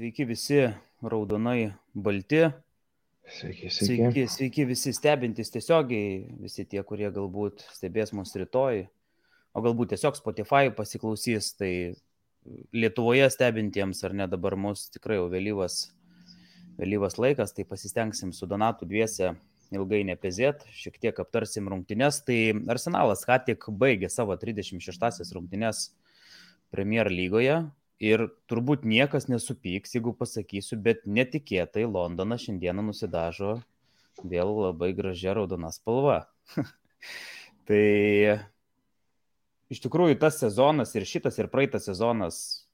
Sveiki visi raudonai balti, Sveiki. sveiki visi stebintys tiesiogiai, visi tie, kurie galbūt stebės mus rytoj, o galbūt tiesiog Spotify pasiklausys, tai Lietuvoje stebintiems ar ne dabar mus tikrai jau vėlyvas laikas, tai pasistengsim su Donatu dviese ilgai nepezėt, šiek tiek aptarsim rungtynes. Tai Arsenalas ką tik baigė savo 36-asias rungtynes Premier lygoje. Ir turbūt niekas nesupyks, jeigu pasakysiu, bet netikėtai Londonas šiandieną nusidažo vėl labai gražia raudona spalva. Tai iš tikrųjų tas sezonas ir šitas ir praeitas sezonas,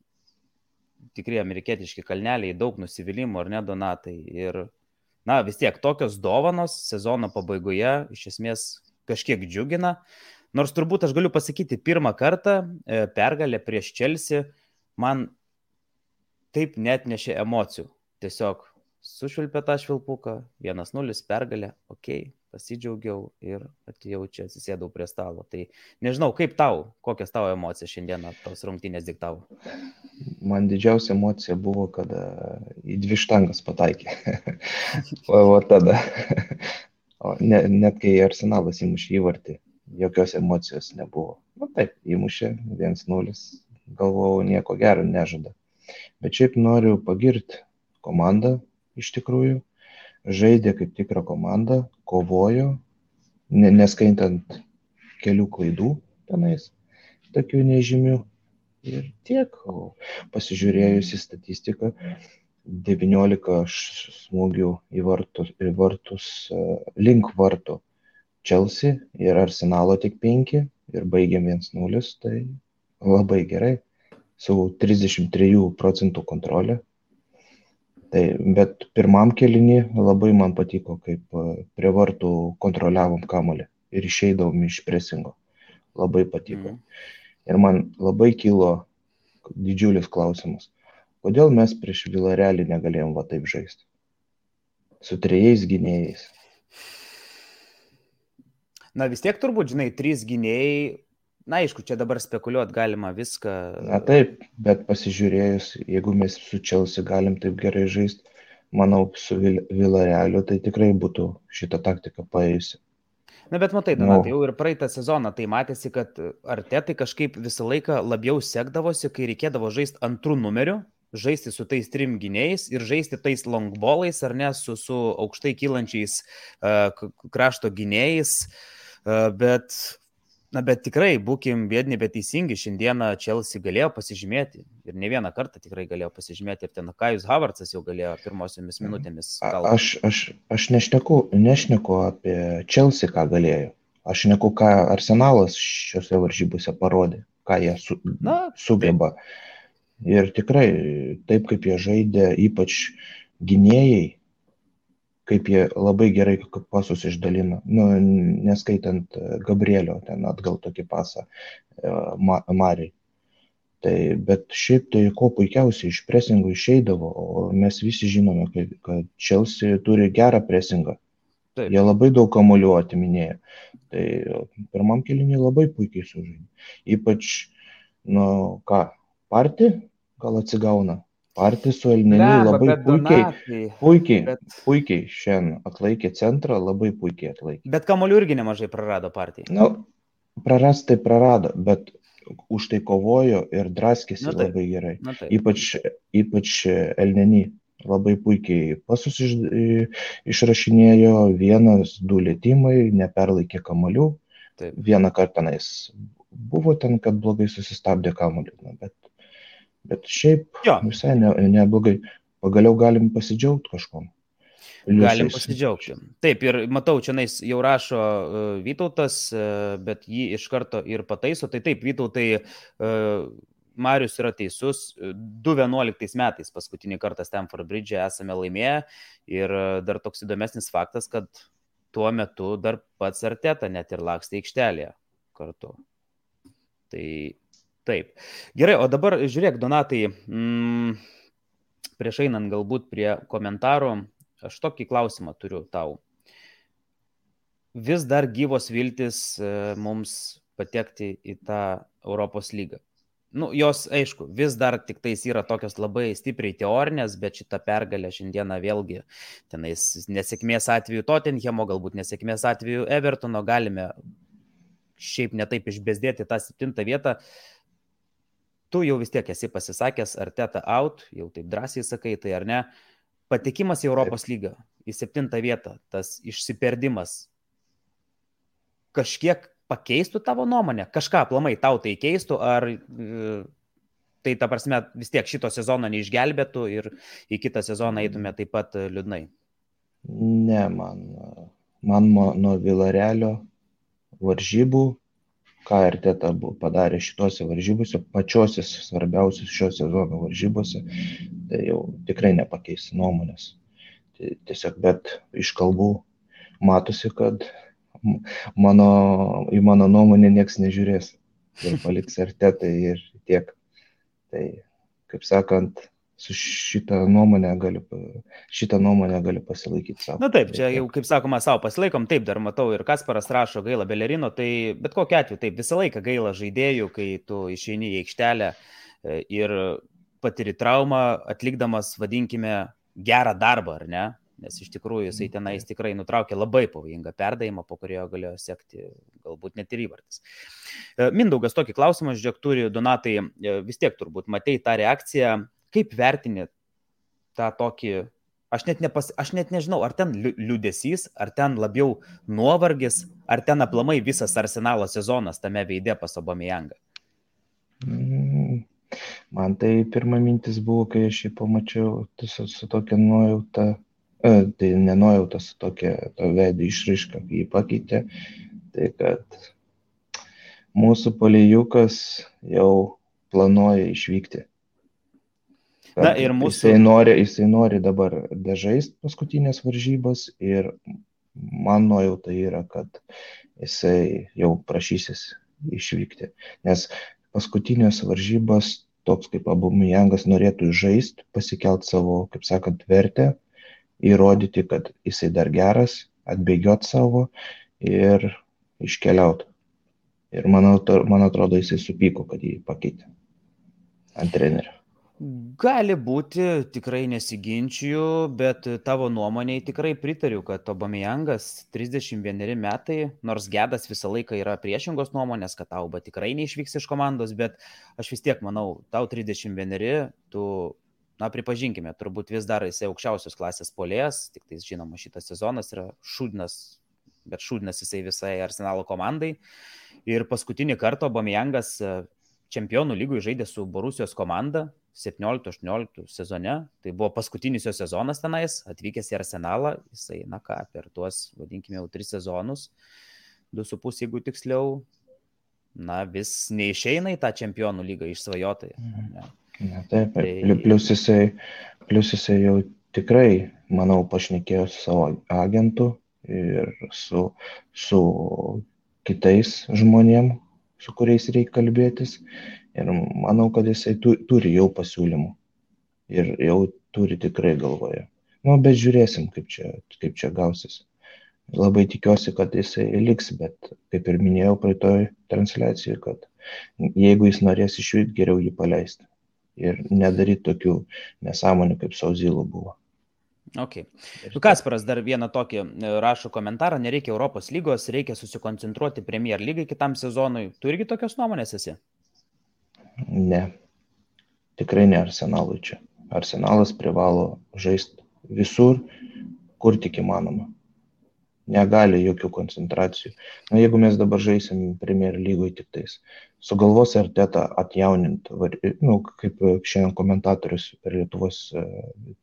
tikrai amerikietiški kalneliai, daug nusivylimų, ar ne, Donatai? Ir vis tiek tokios dovanos sezono pabaigoje iš esmės kažkiek džiugina. Nors turbūt aš galiu pasakyti, pirmą kartą pergalė prieš Chelsea man taip net nešė emocijų. Tiesiog sušvilpė tą švilpuką, 1-0 pergalė, pasidžiaugiau ir atėjau čia, atsisėdau prie stalo. Tai nežinau, kaip tau, kokias tavo emocijas šiandieną tos rungtynės diktavo? Man didžiausia emocija buvo, kada į 2 štangas pataikė. o tada, net kai Arsenalas įmušė įvartį, jokios emocijos nebuvo. Taip, įmušė 1-0, galvojau, nieko gero nežada. Bet šiaip noriu pagirti komandą, iš tikrųjų. Žaidė kaip tikra komanda, kovojo, neskaitant kelių klaidų tenais, tokių nežymių. Ir tiek, pasižiūrėjus į statistiką, 19 smūgių į vartus link vartų Chelsea ir Arsenalo tik 5 ir baigėm 1-0, tai labai gerai, su 33% kontrolė. Tai, bet pirmam kėlinį labai man patiko, kaip prie vartų kontroliavom kamuolį ir išeidavom iš presingo. Labai patiko. Ir man labai kilo didžiulis klausimas, kodėl mes prieš Villarrealį negalėjom taip žaisti? Su 3 gynėjais. Vis tiek turbūt, 3 gynėjai, aišku, čia dabar spekuliuoti galima viską. Taip, bet pasižiūrėjus, jeigu mes su Chelsea galim taip gerai žaisti, manau, su Villarrealiu tai tikrai būtų šitą taktiką paėjusi. Bet matai, Donatai, jau ir praeitą sezoną tai matėsi, kad Artetai kažkaip visą laiką labiau sekdavosi, kai reikėdavo žaisti antrų numerių, žaisti su tais 3 gynėjais ir žaisti tais longballais, ar ne, su aukštai kylančiais krašto gynėjais, bet tikrai, būkim biedni, bet teisingi, šiandieną Chelsea galėjo pasižymėti ir ne vieną kartą tikrai galėjo pasižymėti ir ten Kajus Havertzas jau galėjo pirmosiomis minutėmis. Aš nešneku apie Chelsea, ką galėjo. Aš šneku, ką Arsenalas šiose varžybose parodė, ką jie sugeba. Taip. Ir tikrai, taip kaip jie žaidė, ypač gynėjai, kaip jie labai gerai pasus išdalino, neskaitant Gabrielio, ten atgal tokį pasą Mariai. Tai, bet šiaip tai ko puikiausiai iš presingų išeidavo, o mes visi žinome, kad Chelsea turi gerą presingą. Taip. Jie labai daug kamuolių atiminėjo. Tai pirmam kėlinį labai puikiai sužaidė. Ypač, Partį gal atsigauna. Partį su Elneniu labai puikiai šiandien atlaikė centrą, labai puikiai atlaikė. Bet kamuolių irgi nemažai prarado Partį. Prarast tai prarado, bet už tai kovojo ir draskėsi labai gerai. Ypač Elneny labai puikiai pasus išrašinėjo, 1-2 lietimai, neperlaikė kamuolių. Vieną kartą tenais buvo ten, kad blogai susistabdė kamuolį, bet šiaip visai neblogai. Pagaliau galim pasidžiaugti kažkom. Galim pasidžiaugti. Taip, ir matau, čia jau rašo Vytautas, bet jį iš karto ir pataiso. Tai taip, Vytautai, Marius yra teisus. 2011 metais paskutinį kartą Stamford Bridge esame laimėję. Ir dar toks įdomesnis faktas, kad tuo metu dar pats Arteta net ir lakstė aikštelėje kartu. Tai taip. Gerai, o dabar žiūrėk, Donatai, prieš einant galbūt prie komentarų, aš tokį klausimą turiu tau. Vis dar gyvos viltis mums patekti į tą Europos lygą. Nu, jos, aišku, vis dar tik tais yra tokios labai stipriai teorinės, bet šitą pergalę šiandieną vėlgi tenais nesėkmės atveju Tottenhamo, galbūt nesėkmės atveju Evertono galime šiaip netaip išbezdėti tą 7 vietą. Tu jau vis tiek esi pasisakęs, Arteta out, jau taip drąsiai sakai, tai ar ne? Patekimas į Europos lygą, į 7 vietą, tas išsiperdimas kažkiek pakeistų tavo nuomonę? Kažką aplamai tau tai keistų, ar tai ta prasme vis tiek šito sezono neišgelbėtų ir į kitą sezoną eitume taip pat liūdnai? Ne, man nuo Villarealio varžybų, ką Arteta padarė šitose varžybose, pačiose svarbiausios šio sezono varžybose, tai jau tikrai nepakeis nuomonės. Tai tiesiog, bet iš kalbų matosi, kad į mano nuomonę nieks nežiūrės ir paliks Artetai ir tiek. Tai, kaip sakant, su šitą nuomonę gali pasilaikyti savo. Na taip, čia jau, kaip sakoma, savo pasilaikom, taip, dar matau ir Kasparas rašo gaila Belerino, tai bet kokiu atveju, taip, visą laiką gaila žaidėjų, kai tu išeini į aikštelę ir patiri traumą, atlikdamas, vadinkime, gerą darbą, ar ne? Nes iš tikrųjų jisai tenais tikrai nutraukė labai pavojingą perdavimą, po kurio galėjo sekti galbūt net ir įvartis. Mindaugas tokį klausimą, žiūrėk, turi Donatai, vis tiek turbūt matei tą reakciją, kaip vertini tą tokį, aš net nežinau, ar ten liūdesys, ar ten labiau nuovargis, ar ten aplamai visas Arsenalo sezonas tame veide pas Aubameyangą? Man tai pirma mintis buvo, kai aš jį pamačiau su tokia nuojauta. Tai nenojautas tokia to veido išraiška, kai jį pakeitė, tai kad mūsų polėjukas jau planuoja išvykti. Na, ir mūsų... jisai nori dabar dažaist paskutinės varžybas ir man nuojauta yra, kad jisai jau prašysis išvykti. Nes paskutinės varžybas toks kaip Aubameyangas norėtų žaist, pasikelt savo, kaip sakant, vertę, įrodyti, kad jisai dar geras, atbėgiot savo ir iškeliauti. Ir man atrodo, jisai supyko, kad jį pakeitė ant trenerio. Gali būti, tikrai nesiginčiju, bet tavo nuomonėj tikrai pritariu, kad Aubameyangas 31 metai, nors Gedas visą laiką yra priešingos nuomonės, kad Auba tikrai neišvyks iš komandos, bet aš vis tiek manau, tau 31, tu... Na, pripažinkime, turbūt vis dar jisai aukščiausios klasės puolėjas, tik tai žinoma, šitas sezonas yra šūdnas, bet šūdnas jisai visai Arsenalo komandai. Ir paskutinį kartą Aubameyangas čempionų lygoj žaidė su Borusijos komanda 17-18 sezone. Tai buvo paskutinis jo sezonas tenais, atvykęs į Arsenalą, jisai, na ką, per tuos, vadinkime, jau 3 sezonus, 2,5 jeigu tiksliau, na, vis neišeina į tą čempionų lygą išsvajotai. Na, taip, plius jisai jau tikrai, manau, pašnekėjo su savo agentu ir su kitais žmonėm, su kuriais reikia kalbėtis. Ir manau, kad jisai turi jau pasiūlymų ir jau turi tikrai galvoje. Nu, bet žiūrėsim, kaip čia gausis. Labai tikiuosi, kad jisai liks, bet kaip ir minėjau praeitoj transliacijai, kad jeigu jis norės išvykti, geriau jį paleisti. Ir nedaryti tokių nesąmonių, kaip su Ozilu buvo. Ok. Kasparas dar vieną tokį rašo komentarą, nereikia Europos lygos, reikia susikoncentruoti Premier lygai kitam sezonui. Tu irgi tokios nuomonės esi? Ne. Tikrai ne Arsenalui čia. Arsenalas privalo žaisti visur, kur tik įmanoma. Negali jokių koncentracijų. Na, jeigu mes dabar žaisim Premier lygoj tik tais, sugalvos Arteta atjaunint, nu, kaip šiandien komentatorius per Lietuvos,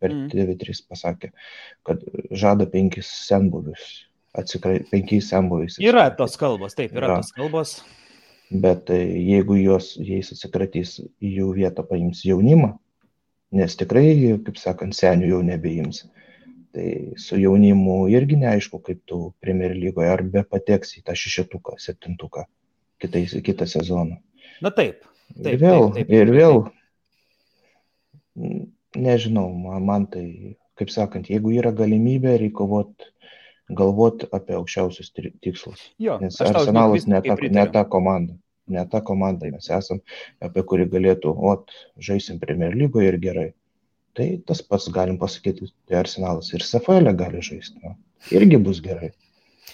per TV3 pasakė, kad žada 5 senbuvius, 5 senbuviais. Yra tos kalbos, taip, yra tos kalbos. Bet jeigu jais atsikratys, į jų vietą paims jaunimą, nes tikrai, kaip sakant, senių jau nebeims. Tai su jaunimu irgi neaišku, kaip tu Premier lygoje, ar be pateks į tą 6-tuką, 7-tuką kitą sezoną. Na taip. Ir vėl, nežinau, man tai, kaip sakant, jeigu yra galimybė, reikia galvoti apie aukščiausius tikslus. Jo, nes Arsenalas ne ta komanda. Ne ta komanda mes esam, apie kurį galėtų, žaisim Premier lygoje ir gerai. Tai tas pats galim pasakyti, tai Arsenalas ir SFL gali žaisti, irgi bus gerai.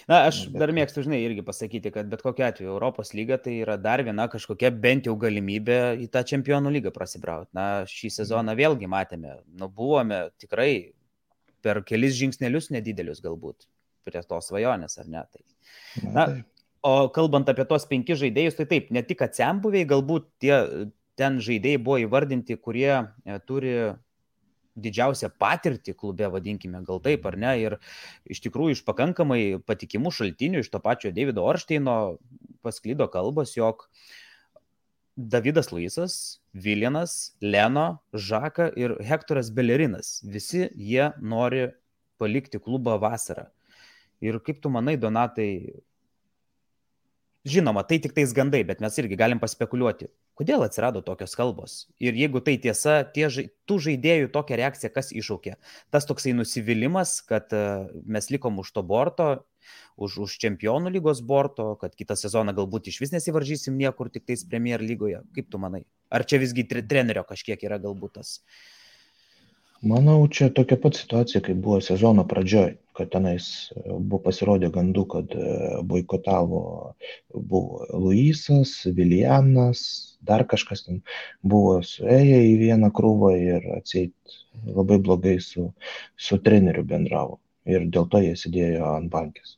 Na, aš dar mėgstu, žinai, irgi pasakyti, kad bet kokiu atveju Europos lyga tai yra dar viena kažkokia bent jau galimybė į tą čempionų lygą prasibrauti. Na, šį sezoną vėlgi matėme, buvome tikrai per kelis žingsnelius nedidelius galbūt prie tos svajonės, ar ne? Tai. O kalbant apie tos 5 žaidėjus, tai taip, ne tik atsembuviai, galbūt ten žaidėjai buvo įvardinti, kurie turi didžiausią patirtį klube, vadinkime, gal taip ar ne, ir iš tikrųjų iš pakankamai patikimų šaltinių, iš to pačio Davido Oršteino pasklido kalbos, jog Davidas Luisas, Viljanas, Leno, Žaka ir Hektoras Belerinas, visi jie nori palikti klubą vasarą. Ir kaip tu manai, Donatai, žinoma, tai tik tais gandai, bet mes irgi galim paspekuliuoti, kodėl atsirado tokios kalbos. Ir jeigu tai tiesa, tų žaidėjų tokia reakcija, kas iššaukė? Tas toksai nusivylimas, kad mes likom už to borto, už čempionų lygos borto, kad kitą sezoną galbūt iš vis nesivaržysim niekur, tik tais Premier lygoje. Kaip tu manai? Ar čia visgi trenerio kažkiek yra galbūt tas? Manau, čia tokia pat situacija, kaip buvo sezono pradžioj, kad tenais buvo pasirodė gandų, kad boikotavo buvo Luisas, Viljanas, dar kažkas ten buvo suėję į vieną krūvą ir atseit labai blogai su treneriu bendravo. Ir dėl to jie sėdėjo ant bankės.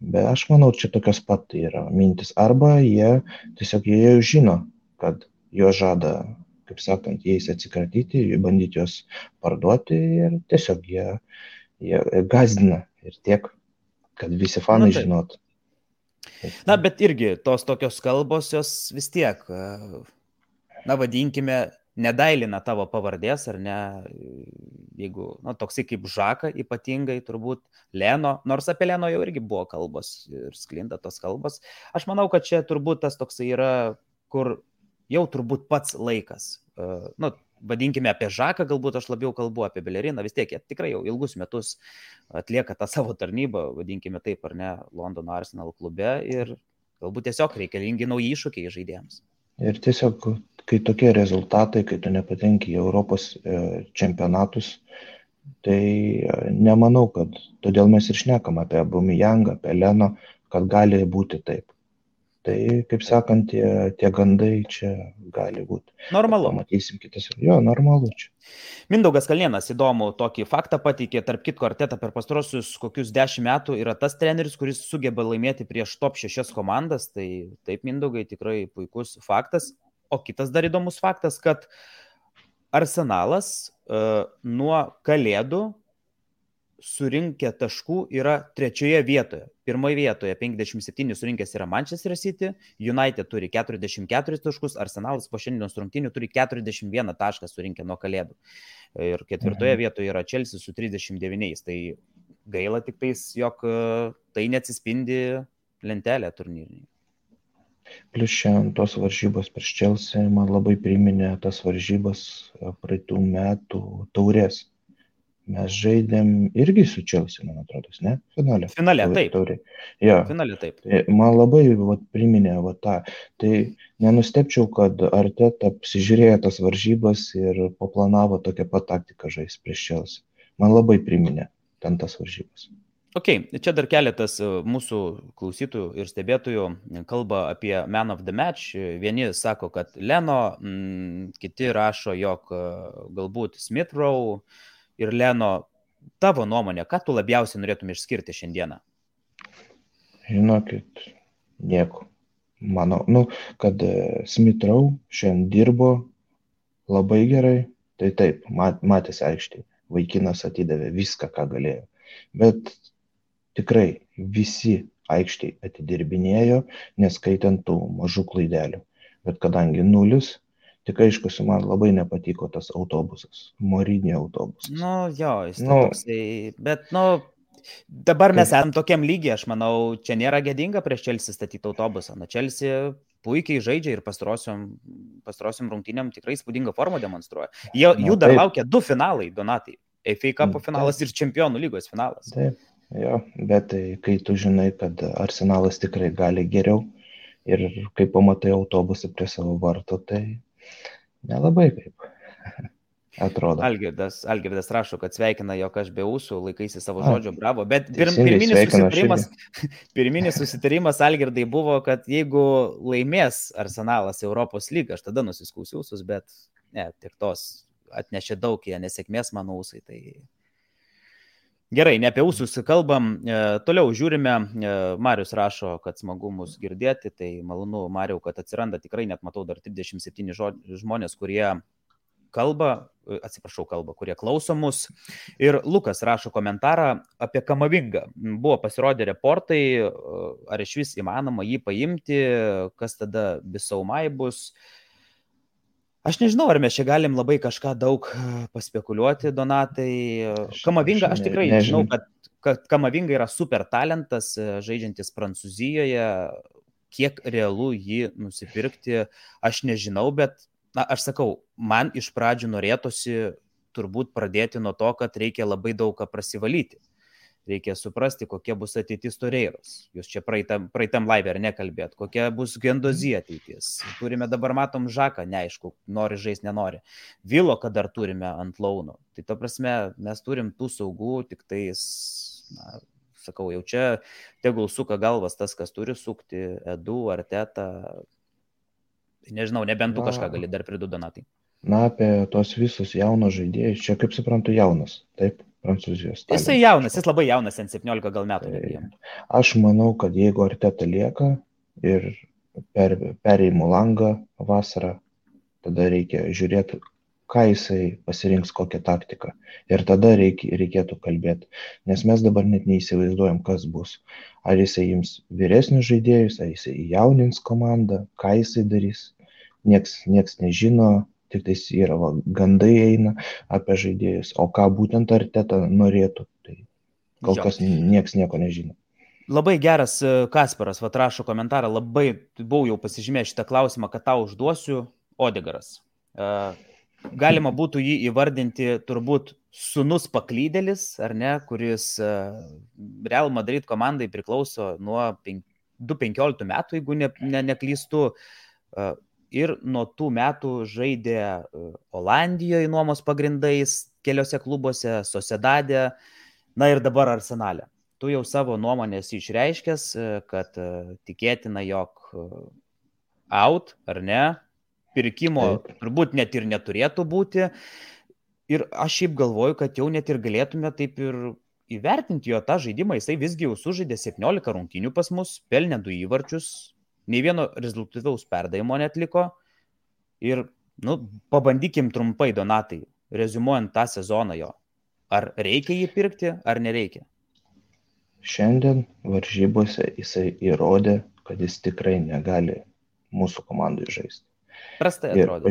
Bet aš manau, čia tokios pat yra mintis. Arba jie jau žino, kad jo žada, kaip sakant, jais atsikratyti, bandyti juos parduoti ir tiesiog jie gazdina ir tiek, kad visi fanai žinotų. Na, bet irgi tos tokios kalbos, jos vis tiek, vadinkime, nedailina tavo pavardės, ar ne, jeigu, toksai kaip Žaka ypatingai, turbūt Leno, nors apie Leno jau irgi buvo kalbos ir sklinda tos kalbos. Aš manau, kad čia turbūt tas toksai yra, kur jau turbūt pats laikas. Vadinkime apie Žaką, galbūt aš labiau kalbu apie Beleriną, vis tiek jie tikrai jau ilgus metus atlieka tą savo tarnybą, vadinkime taip ar ne, Londono Arsenal klube ir galbūt tiesiog reikalingi nauji iššūkiai žaidėjams. Ir tiesiog, kai tokie rezultatai, kai tu nepatenki į Europos čempionatus, tai nemanau, kad todėl mes ir šnekam apie Aubameyangą, apie Leno, kad gali būti taip. Tai, kaip sakant, tie gandai čia gali būti. Normalu. Pamatysim kitas. Jo, normalu čia. Mindaugas Kalnienas įdomų tokį faktą pateikė, tarp kitko Arteta per pastarosius kokius 10 metų yra tas treneris, kuris sugeba laimėti prieš top 6 komandas. Tai taip, Mindaugai, tikrai puikus faktas. O kitas dar įdomus faktas, kad Arsenalas nuo Kalėdų surinkę taškų yra 3 vietoje. 1 vietoje 57 surinkęs yra Manchester City, United turi 44 taškus, Arsenalas po šiandienos rungtynių turi 41 tašką surinkę nuo Kalėdų. Ir 4 vietoje yra Chelsea su 39. Tai gaila tik tais, jog tai neatsispindi lentelė turnyrinėje. Plius šiandien tos varžybos prieš Chelsea man labai priminė tas varžybas praeitų metų taurės. Mes žaidėm irgi su Chelsea, man atrodo, ne? Finale, taip. Ja. Finale, taip. Man labai priminė tą. Tai nenustepčiau, kad Arteta apsižiūrėjo tas varžybas ir paplanavo tokią pat taktiką žaisti prieš Chelsea. Man labai priminė ten tas varžybas. Ok, čia dar keletas mūsų klausytojų ir stebėtojų kalba apie Man of the Match. Vieni sako, kad Leno, kiti rašo, jog galbūt Smith Rowe ir Leno. Tavo nuomonė, ką tu labiausiai norėtum išskirti šiandieną? Žinokit, nieko. Manau, kad Smith Rowe šiandien dirbo labai gerai. Tai taip, matėsi aikštėje. Vaikinas atidavė viską, ką galėjo. Bet tikrai visi aikštėje atidirbinėjo, neskaitant tų mažų klaidelių. Bet kadangi 0, tik aišku, man labai nepatiko tas autobusas, Mourinho autobusas. Jis toksai, bet dabar mes esam tokiam lygiai, aš manau, čia nėra gėdinga prieš Chelsea statyti autobusą. Chelsea puikiai žaidžia ir pastarosiom rungtynėm tikrai įspūdingą formą demonstruoja. Jų dar laukia 2 finalai, Donatai. FA Cup finalas ir Čempionų lygos finalas. Taip, jo, bet kai tu žinai, kad Arsenalas tikrai gali geriau Ir kai pamatai autobusą prie savo varto, tai nelabai kaip atrodo. Algirdas rašo, kad sveikina, jog aš be ūsų laikaisi savo A, žodžio, bravo. Bet teisingai sveikinu aš irgi. pirminis susitarimas, Algirdai, buvo, kad jeigu laimės Arsenalas Europos lygą, aš tada nusiskūsiu ūsus, bet ne, tik tos atnešė daug jie nesėkmės mano ūsai. Tai... Gerai, ne apie ūsus kalbam, toliau žiūrime, Marius rašo, kad smagu mus girdėti, tai malonu, Mariau, kad atsiranda, tikrai net matau dar 37 žmonės, kurie kurie klauso mus. Ir Lukas rašo komentarą apie Kamavingą. Buvo pasirodę reportai, ar iš vis įmanoma jį paimti, kas tada Bisaumai bus. Aš nežinau, ar mes čia galim labai kažką daug paspekuliuoti, Donatai. Kamavinga, aš tikrai žinau, kad Kamavinga yra super talentas, žaidžiantis Prancūzijoje. Kiek realu jį nusipirkti, aš nežinau, bet aš sakau, man iš pradžių norėtųsi turbūt pradėti nuo to, kad reikia labai daug ką prasivalyti. Reikia suprasti, kokia bus ateitis Toreiros. Jūs čia praeitam live ar nekalbėt, kokia bus Gendozija ateitis. Turime dabar, matom, Žaką, neaišku, nori žaisti, nenori. Vilo, kad dar turime ant launo. Tai ta prasme, mes turim tų saugų, tik tais, sakau, jau čia tegul suka galvas tas, kas turi sukti, Edu, Arteta. Nežinau, nebent tu kažką gali dar pridurti, Donatai. Na, apie tos visus jaunos žaidėjus, čia kaip suprantu jaunas, taip, Prancūzijos. Jisai jaunas, jis labai jaunas, 17 gal metų. Aš manau, kad jeigu Arteta lieka ir perėjimo langą vasarą, tada reikia žiūrėti, ką jisai pasirinks, kokią taktiką. Ir tada reikėtų kalbėti. Nes mes dabar net neįsivaizduojam, kas bus. Ar jisai ims vyresnius žaidėjus, ar jisai jaunins komandą, ką jisai darys. Nieks nežino, tik tais yra gandai eina apie žaidėjus. O ką būtent Arteta norėtų, tai kol kas nieks nieko nežino. Labai geras Kasparas, rašo komentarą, labai buvau jau pasižymėjęs šitą klausimą, kad tau užduosiu. Odegaras. Galima būtų jį įvardinti turbūt sūnus paklydėlis, ar ne, kuris Real Madrid komandai priklauso nuo 2015 metų, jeigu neklystu, ir nuo tų metų žaidė Olandijoje nuomos pagrindais, keliose klubuose, Sociedade, na ir dabar Arsenale. Tu jau savo nuomonės išreiškęs, kad tikėtina, jog out, ar ne, pirkimo turbūt net ir neturėtų būti. Ir aš šiaip galvoju, kad jau net ir galėtume taip ir įvertinti jo tą žaidimą. Jisai visgi jau sužaidė 17 rungtynių pas mus, pelnė 2 įvarčius, nei vieno rezultatyvaus perdavimo netliko. Ir, pabandykim trumpai, Donatai, reziumuojant tą sezoną jo. Ar reikia jį pirkti, ar nereikia? Šiandien varžybose jisai įrodė, kad jis tikrai negali mūsų komandai žaisti. Prastai atrodo.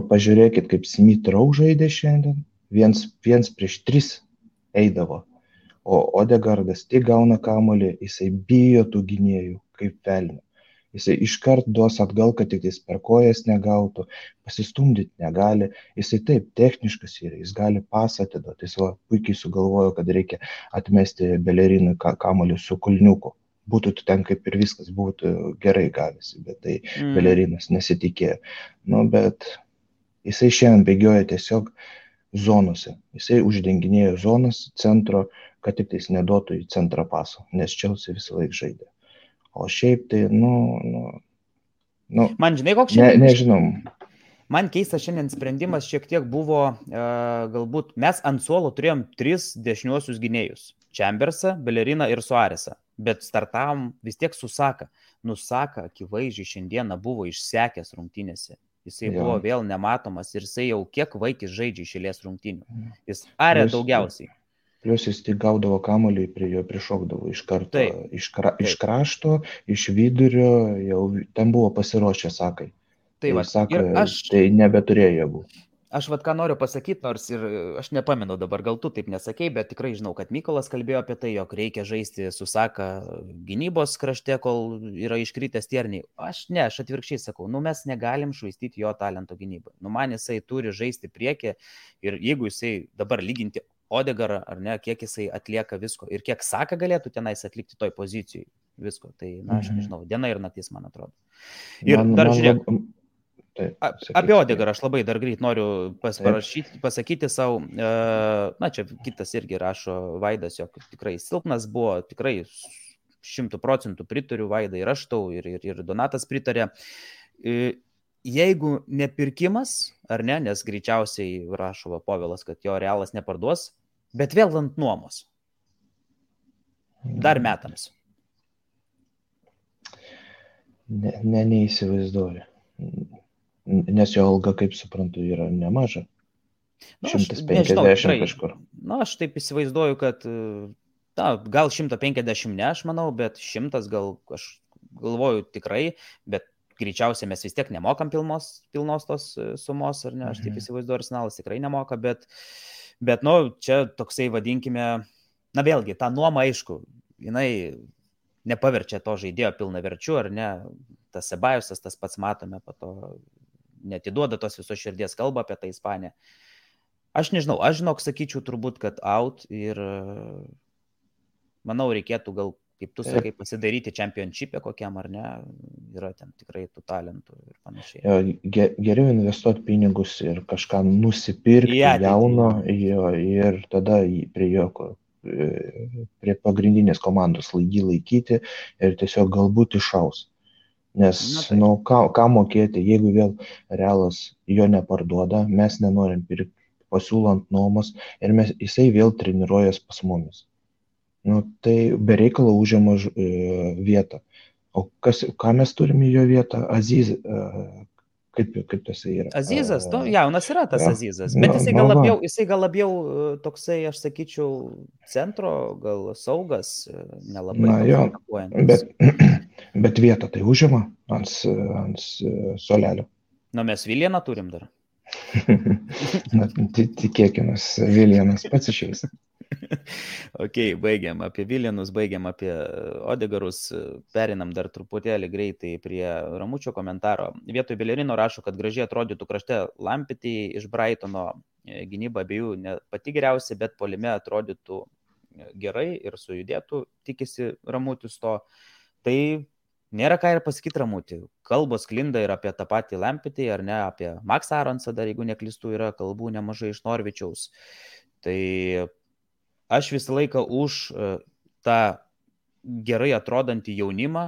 Pažiūrėkit, kaip Smith Rowe žaidė šiandien. Viens prieš 3 eidavo. O Odegaardas tik gauna kamuolį, jisai bijo tų gynėjų kaip velnio. Jisai iškart duos atgal, kad tik jis per kojas negautų, pasistumdyti negali. Jisai taip techniškas yra, jis gali pasą atiduoti. Jis puikiai sugalvojo, kad reikia atmesti Belerinui kamuolį su kulniuku. Būtų ten kaip ir viskas, būtų gerai gavęs, bet tai Belerinas nesitikėjo. Bet jisai šiandien bėgioja tiesiog zonose. Jisai uždenginėjo zonas centro, kad tik tais neduotų į centrą paso, nes Chelsea visą laiką žaidė. O šiaip tai, man žinai, koks šiandien? Nežinom. Man keistas šiandien sprendimas šiek tiek buvo, galbūt mes ant suolo turėjom 3 dešiniuosius gynėjus. Chambersą, Belleriną ir Suarezą. Bet startavom vis tiek su Saka. Saka akivaizdžiai šiandieną buvo išsekęs rungtynėse. Jisai buvo vėl nematomas ir jisai jau kiek vaikis žaidžia iš eilės rungtynių. Jis arė daugiausiai. Plius jis tik gaudavo kamuolį, prie jo prišokdavo iš karto, iš krašto, iš vidurio, jau ten buvo pasiruošę Sakai. Tai nebeturėjo jėgų. Aš ką noriu pasakyti, nors ir aš nepamenu dabar, gal tu taip nesakei, bet tikrai žinau, kad Mykolas kalbėjo apie tai, jog reikia žaisti su Saka gynybos krašte, kol yra iškritęs tierniai. Aš atvirkščiai sakau, mes negalim švaistyti jo talento gynybą. Man jisai turi žaisti priekį ir jeigu jisai dabar lyginti Odegaarą, ar ne, kiek jisai atlieka visko ir kiek Saka galėtų tenais atlikti toj pozicijai. visko. Tai, na, aš nežinau, diena ir naktis, man atrodo. Ir Man, dar man žiūrėk, Taip, apie Odegarą aš labai dar greit noriu pasakyti savo, na, čia kitas irgi rašo Vaidas, jog tikrai silpnas buvo, tikrai 100% pritariu Vaidai ir aš tau, ir Donatas pritarė. Jeigu nepirkimas, ar ne, nes greičiausiai rašo Povilas, kad jo Realas neparduos, bet vėl ant nuomos. Dar metams. Neįsivaizduoju. Nes jo alga, kaip suprantu, yra nemaža. 150 kažkur. Na, aš taip įsivaizduoju, kad gal 150 ne, aš manau, bet 100 gal, aš galvoju tikrai, bet greičiausiai mes vis tiek nemokam pilnos tos sumos, ar ne, aš taip įsivaizduoju, Arsenalas tikrai nemoka, bet nu, čia toksai vadinkime, na vėlgi, ta nuoma, aišku, jinai nepaverčia to žaidėjo pilnaverčiu, ar ne, tas Sebajusas, tas pats matome, po to netiduoda tos visos širdies kalbą apie tą Ispaniją. Aš nežinau, sakyčiau turbūt, kad out ir manau, reikėtų gal, kaip tu sakai, pasidaryti championship'e kokiam, ar ne, yra ten tikrai tų talentų ir panašiai. Geriau investuoti pinigus ir kažką nusipirkti jauno ir tada prie pagrindinės komandos jį laikyti ir tiesiog galbūt išaus. Nes, ką mokėti, jeigu vėl Realas jo neparduoda, mes nenorim pirkti, pasiūlant nuomos ir jisai vėl treniruojas pas mumis. Tai be reikalo užima vietą. O ką mes turime jo vietą? Aziz, kaip tas yra? Azizas, jaunas yra tas Azizas, bet jisai gal labiau toksai, aš sakyčiau, centro, gal saugas, nelabai atakuojantis. Bet vietą tai užima ant suolelio. Mes Viljaną turim dar. Tikėkime, Viljanas pats išeis. Ok, baigiam apie Viljanus, baigiam apie Odegarus, perinam dar truputėlį greitai prie Ramučio komentaro. Vietoj Belerino rašo, kad gražiai atrodytų krašte Lampetį iš Brightono, gynyba abiejų ne pati geriausia, bet puolime atrodytų gerai ir sujudėtų, tikisi Ramutis to. Tai nėra ką ir pasakyti Ramutį. Kalbos klinda ir apie tą patį Lampetį, ar ne, apie Max Aronsą, dar jeigu neklystu, yra kalbų nemažai iš Norvičiaus. Tai aš visą laiką už tą gerai atrodantį jaunimą,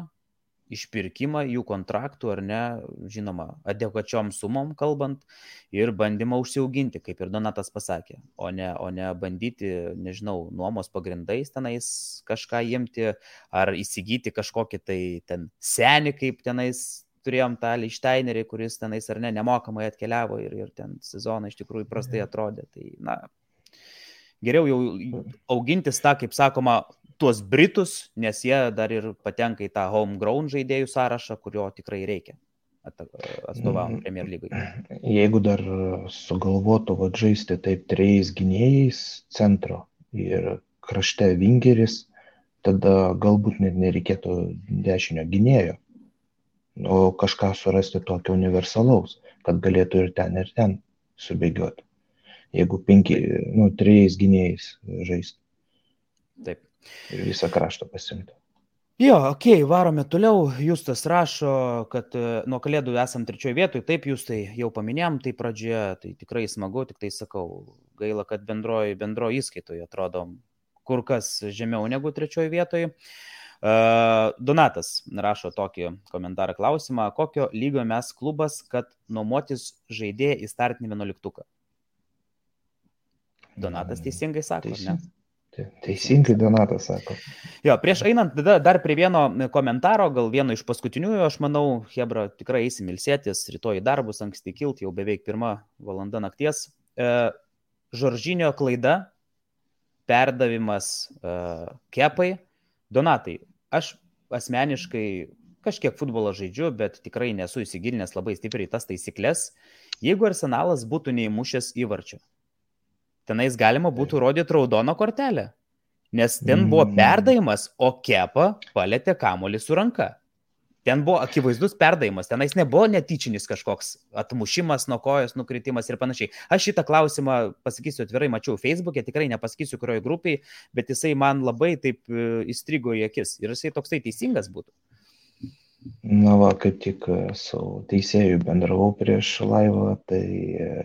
išpirkimą jų kontraktų, ar ne, žinoma, adekvačiom sumom kalbant, ir bandymą užsiauginti, kaip ir Donatas pasakė, o ne bandyti, nežinau, nuomos pagrindais tenais kažką imti, ar įsigyti kažkokį tai ten senį, kaip tenais turėjom tą Lichtsteinerį, kuris tenais ar ne nemokamai atkeliavo ir ten sezoną iš tikrųjų prastai atrodė. Tai, na, geriau jau augintis tą, kaip sakoma, tuos Britus, nes jie dar ir patenka į tą homegrown žaidėjų sąrašą, kurio tikrai reikia atstovaujant Premier lygai. Jeigu dar sugalvotų žaisti taip 3 gynėjais centro ir krašte vingeris, tada galbūt net nereikėtų dešinio gynėjo, o kažką surasti tokio universalaus, kad galėtų ir ten subėgioti. Jeigu 3 gynėjais žaisti. Taip. Ir visą kraštą pasimti. Jo, okei, varome toliau. Justas rašo, kad nuo Kalėdų esam 3 vietoj. Taip, Justai, jau paminėjom tai pradžioje, tai tikrai smagu, tik tai sakau, gaila, kad bendroji įskaitoje atrodom kur kas žemiau negu 3 vietoj. Donatas rašo tokį komentarą klausimą, kokio lygio mes klubas, kad nuomotis žaidėją į startinį 11-tuką? Donatas teisingai sako, ne? Teisingai Donatas sako. Jo, prieš einant dar prie vieno komentaro, gal vieno iš paskutiniųjų, aš manau, Hebra, tikrai eisim ilsėtis, rytoj į darbus, anksti kilt, jau beveik 1 valanda nakties. Žoržinio klaida, perdavimas Kepai. Donatai, aš asmeniškai kažkiek futbolą žaidžiu, bet tikrai nesu įsigilinęs labai stipriai tas taisyklės. Jeigu Arsenalas būtų neįmušęs įvarčio, tenais galima būtų rodyti raudoną kortelę, nes ten buvo perdavimas, o Kepa palėtė kamuolį su ranka. ten buvo akivaizdus perdavimas, tenais nebuvo netyčinis kažkoks atmušimas nuo kojos, nukritimas ir panašiai. Aš šitą klausimą, pasakysiu atvirai, mačiau Facebook'e, tikrai nepasakysiu, kurioje grupėje, bet jisai man labai taip įstrigo į akis ir jisai toksai teisingas būtų. Na va, kaip tik su teisėju bendravau prieš laivą, tai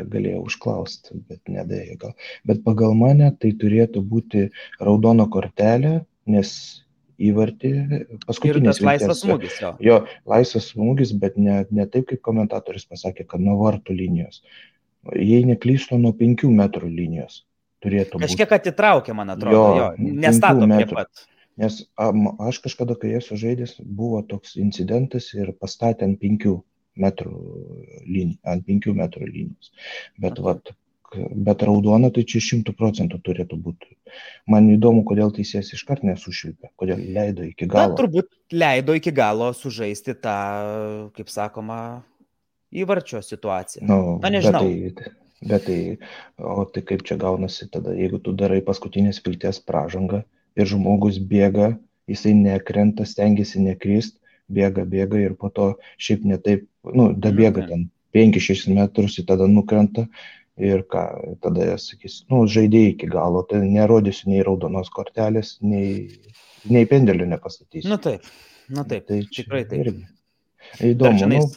galėjau užklausti, bet nedėjo gal. Bet pagal mane tai turėtų būti raudona kortelė, nes įvartį paskutinis ir tas laisvas smūgis, jo, laisvas smūgis, bet ne taip, kaip komentatorius pasakė, kad nuo vartų linijos. Jei neklystu, nuo 5 metrų linijos turėtų būti. Kažkiek atitraukė, man atrodo, jo nestato prie pat. Nes aš kažkada, kai esu žaidęs, buvo toks incidentas ir pastatė ant 5 metrų linijos. Bet raudona tai čia 100% turėtų būti. Man įdomu, kodėl teisėjas iškart nesušvilpė, kodėl leido iki galo. Na, turbūt leido iki galo sužaisti tą, kaip sakoma, įvarčio situaciją. Na, nežinau. Bet tai kaip čia gaunasi tada, jeigu tu darai paskutinės vilties pražangą, ir žmogus bėga, jisai nekrenta, stengiasi nekrist, bėga ir po to šiaip ne taip, dabėga ten 5-6 metrus ir tada nukrenta ir ką, tada jie sakys, žaidėjai iki galo, tai nerodysiu nei raudonos kortelės, nei pendelio nepastatysiu. Nu taip, tai tikrai taip. Irgi. Įdomu.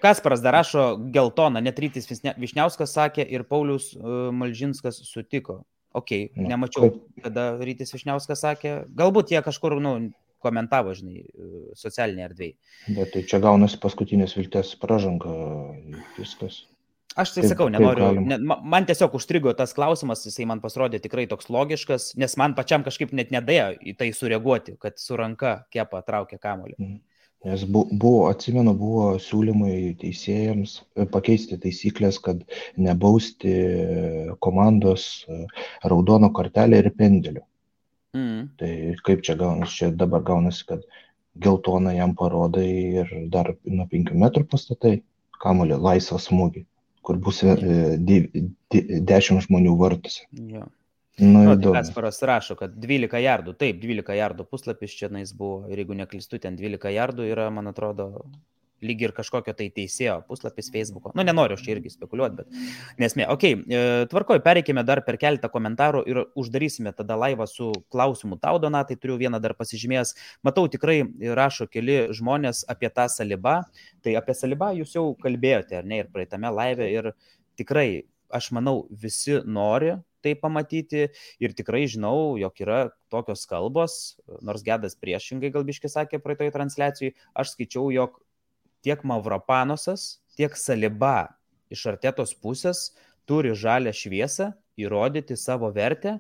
Kasparas dar rašo geltoną, net Rytis Višniauskas sakė ir Paulius Malžinskas sutiko. Nemačiau, kada Rytis Višniauskas sakė. Galbūt jie kažkur, komentavo, socialinėje erdvėje. Bet tai čia gaunasi paskutinės vilties pražanga, viskas. Aš tai sakau, nenoriu. Man tiesiog užstrigo tas klausimas, jisai man pasirodė tikrai toks logiškas, nes man pačiam kažkaip net nedėjo į tai sureaguoti, kad su ranka Kepa traukė kamuolį. Nes buvo siūlymai teisėjams pakeisti taisyklės, kad nebausti komandos raudono kortelę ir pendelio. Tai kaip čia gaunasi? Čia dabar gaunasi, kad geltoną jam parodai ir dar nuo 5 metrų pastatai kamuolį laisvą smūgį, kur bus 10 žmonių vartuose. Jo. Įdomu. Kasparas rašo, kad 12 jardų, taip, 12 jardų puslapis čia buvo, ir jeigu neklystu, ten 12 jardų yra, man atrodo, lyg ir kažkokio tai teisėjo puslapis Facebook'o. Nenoriu aš čia irgi spekuliuoti, bet nesmė. Tvarkoj, pereikime dar per keletą komentarų ir uždarysime tada laivą su klausimu tau, Donatai, turiu vieną dar pasižymėjęs. Matau, tikrai rašo keli žmonės apie tą Salibą. Tai apie Salibą jūs jau kalbėjote, ar ne, ir praeitame laive, ir tikrai, aš manau, visi nori tai pamatyti ir tikrai žinau, jog yra tokios kalbos, nors Gedas priešingai galbiškai sakė praeitoje transliacijai, aš skaičiau, jog tiek Mavropanosas, tiek Saliba iš Artetos pusės turi žalią šviesą įrodyti savo vertę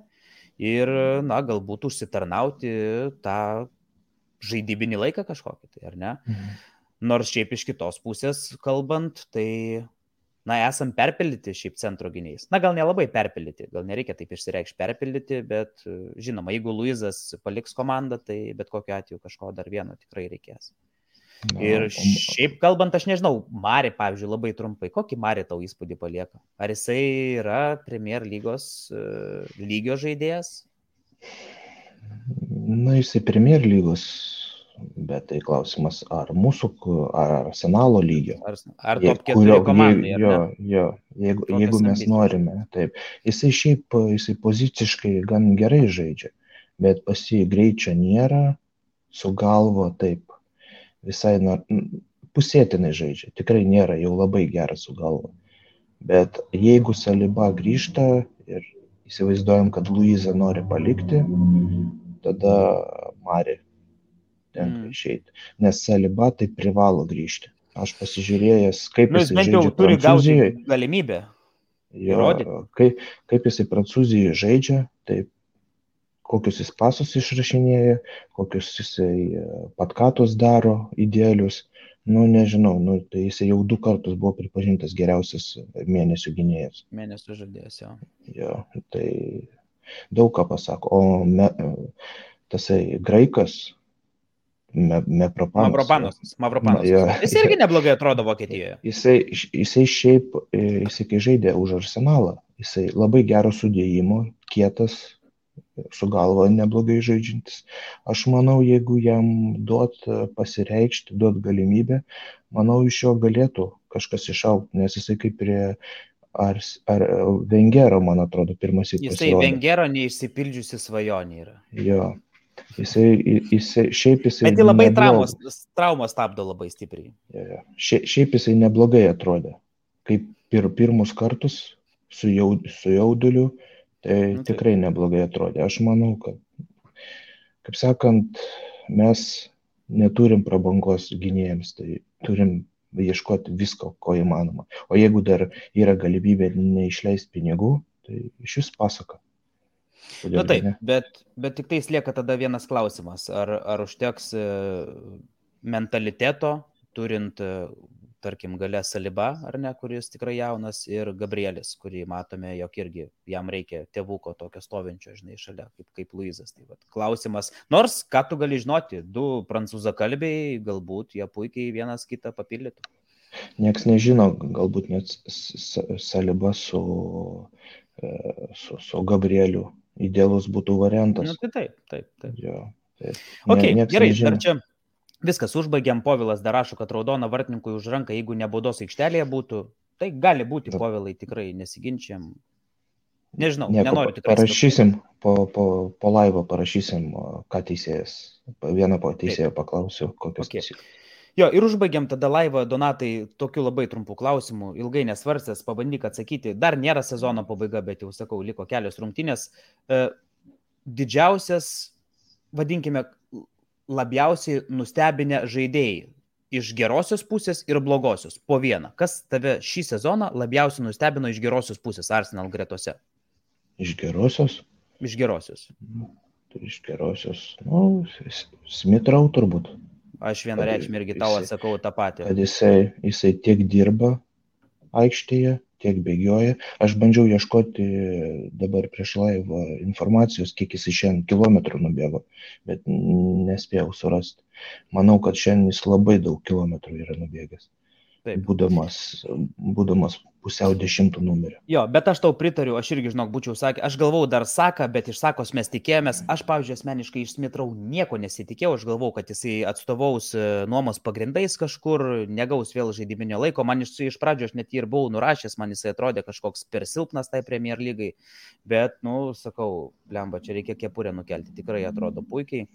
ir, galbūt užsitarnauti tą žaidybinį laiką kažkokį, tai ar ne? Nors šiaip iš kitos pusės kalbant, tai esam perpildyti šiaip centro gynėjais. Gal nelabai perpildyti, gal nereikia taip išsireikšti perpildyti, bet žinoma, jeigu Luizas paliks komandą, tai bet kokiu atveju kažko dar vieno tikrai reikės. Ir šiaip kalbant, aš nežinau, Mari, pavyzdžiui, labai trumpai, kokį Mari tau įspūdį palieka? Ar jisai yra Premier lygos lygio žaidėjas? Jisai Premier lygos, bet tai klausimas, ar mūsų, ar Arsenalo lygio. Ar top 4 komandai, ar ne? Jo, jeigu mes norime, taip. Jisai poziciškai gan gerai žaidžia, bet pas jį greičio nėra, su galvo taip, visai pusėtinai žaidžia, tikrai nėra jau labai geras su galva. Bet jeigu Saliba grįžta ir įsivaizduojam, kad Luizą nori palikti, tada Mari tenka išeiti. Nes Saliba tai privalo grįžti. Aš pasižiūrėjęs, kaip jisai žaidžia Prancūzijoje. Galimybę. Kaip jisai Prancūzijoje žaidžia, taip, kokius jis pasus išrašinėja, kokius jisai patkatus daro idealius. Nežinau, tai jisai jau 2 kartus buvo pripažintas geriausias mėnesių gynėjas. Mėnesių žaidėjas, jo. Jo, tai daug ką pasako. O tasai graikas, Mavropanosas. Jis irgi neblogai atrodo Vokietijoje. Jisai šiaip, kai žaidė už Arsenalą, jisai labai gero sudėjimo, kietas, su galva neblogai žaidžiantis. Aš manau, jeigu jam duot pasireikšti, duot galimybę, manau, iš jo galėtų kažkas išaugti, nes jisai kaip prie ar Vengero, man atrodo, pirmas į Jisai pasirodė. Vengero neišsipildžiusi svajonė yra. Jo. Šiaip jisai Bet tai labai traumos stabdo labai stipriai. Šiaip jisai neblogai atrodė. Kaip pirmus kartus su jauduliu, tai tikrai neblogai atrodė. Aš manau, kad, kaip sakant, mes neturim prabangos gynėjams, tai turim ieškoti visko, ko įmanoma. O jeigu dar yra galimybė neišleisti pinigų, tai iš vis pasaka. Na taip, bet tik tai lieka tada vienas klausimas. Ar užteks mentaliteto, turint, tarkim, gale Saliba, ar ne, kuris tikrai jaunas, ir Gabrielis, kurį matome, jog irgi jam reikia tėvuko tokio stovinčio, žinai, šalia, kaip Luizas. Tai vat, klausimas, nors ką tu gali žinoti, 2 prancūzakalbiai, galbūt jie puikiai vienas kitą papildytų. Nieks nežino, galbūt net Saliba su Gabrieliu idealus būtų variantas. Nu, tai taip. Jo, taip. Okay, gerai, nežino. Dar čia viskas užbaigiam. Povilas dar rašo, kad raudona vartininkui už ranką, jeigu ne baudos aikštelėje būtų, tai gali būti, Povilai, tikrai nesiginčiam. Nežinau, nenoriu tikrai. Parašysim, po laivo parašysim, ką teisėjas. Vieną teisėją paklausiu, kokios teisės. Jo, ir užbaigiam tada laivą, Donatai, tokiu labai trumpų klausimų, ilgai nesvarstęs, pabandyk atsakyti. Dar nėra sezono pabaiga, bet jau sakau, liko kelios rungtynės. Didžiausias, vadinkime, labiausiai nustebinę žaidėjai iš gerosios pusės ir blogosios, po vieną. Kas tave šį sezoną labiausiai nustebino iš gerosios pusės Arsenal gretose? Iš gerosios? Iš gerosios. Iš gerosios, Smith Rowe turbūt. Aš vienareikšmiai irgi tau atsakau tą patį. Kad jisai tiek dirba aikštėje, tiek bėgioja. Aš bandžiau ieškoti dabar prieš laivą informacijos, kiek jis šiandien kilometrų nubėgo, bet nespėjau surasti. Manau, kad šiandien jis labai daug kilometrų yra nubėgęs. Būdamas pusiau 10 numerio. Jo, bet aš tau pritariu, aš irgi, žinok, būčiau sakė, aš galvau dar Saka, bet iš Sakos mes tikėjomės, aš, pavyzdžiui, asmeniškai iš Smith Rowe nieko nesitikėjau, aš galvau, kad jisai atstovaus nuomos pagrindais kažkur, negaus vėl žaidiminio laiko, man iš pradžio aš net ir buvau nurašęs, man jisai atrodė kažkoks per silpnas tai Premier lygai, bet, sakau, blemba, čia reikia kepurę nukelti, tikrai atrodo puikiai.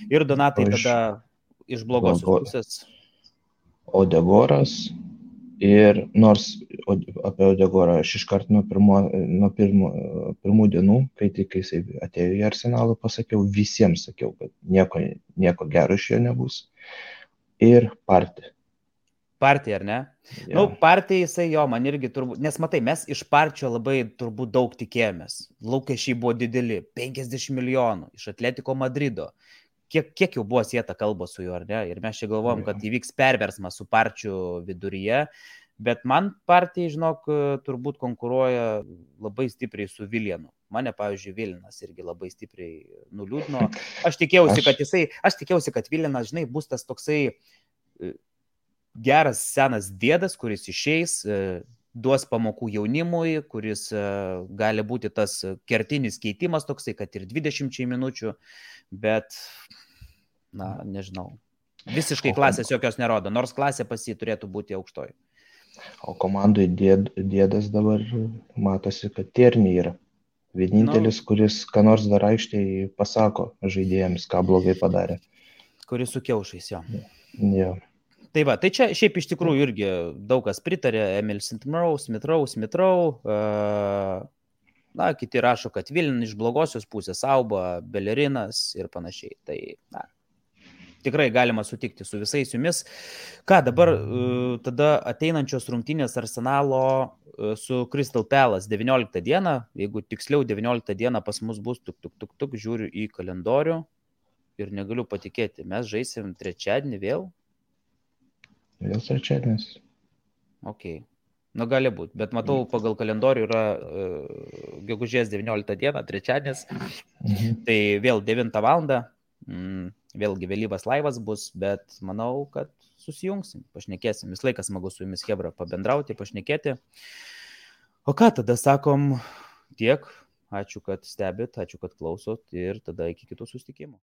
Ir Donatai tada iš blogosios pusės. Odegoras ir nors apie Odegorą aš iškart nuo pirmų dienų, kai tik jisai atėjo į Arsenalą, visiems sakiau, kad nieko gero iš jo nebus. Ir Partija, ar ne? Ja. Partija jisai man irgi turbūt, nes matai, mes iš Partijos labai turbūt daug tikėjomės. Lūkesčiai buvo dideli, 50 milijonų iš Atletico Madrido. Kiek jau buvo sieta kalba su juo, ar ne? Ir mes čia galvojom, kad įvyks perversmas su Partijų viduryje, bet man Partija, žinok, turbūt konkuruoja labai stipriai su Vilianu. Mane, pavyzdžiui, Vilinas irgi labai stipriai nuliūdino. Aš tikėjausi, kad Vilinas, žinai, bus tas toksai geras senas dėdas, kuris išeis, duos pamokų jaunimui, kuris gali būti tas kertinis keitimas toksai, kad ir 20 minučių, bet, nežinau, visiškai klasės jokios nerodo, nors klasė pas jį turėtų būti aukštoji. O komandai dėdas dabar matosi, kad Tierney yra. Vienintelis, kuris ką nors dar aikštėje pasako žaidėjams, ką blogai padarė. Kuris su kiaušais, jo. Jo. Tai va, tai čia šiaip iš tikrųjų irgi daug kas pritarė, Emil Smith Rowe, kiti rašo, kad Vilin iš blogosios pusės, Auba, Belerinas ir panašiai. Tai, tikrai galima sutikti su visais jumis. Ką dabar tada ateinančios rungtynės Arsenalo su Crystal Palace 19 dieną, jeigu tiksliau 19 dieną pas mus bus, žiūriu į kalendorių ir negaliu patikėti, mes žaisim trečiadienį vėl. Vėl trečiadienis. Ok. Gali būti, bet matau, pagal kalendorių yra gegužės 19 diena, trečiadienis. Tai vėl 9 valandą, vėlgi vėlyvas laivas bus, bet manau, kad susijungsim, pašnekėsim. Vis laikas smagu su jumis, Hebra, pabendrauti, pašnekėti. O ką tada sakom tiek? ačiū, kad stebit, ačiū, kad klausot ir tada iki kitų susitikimų.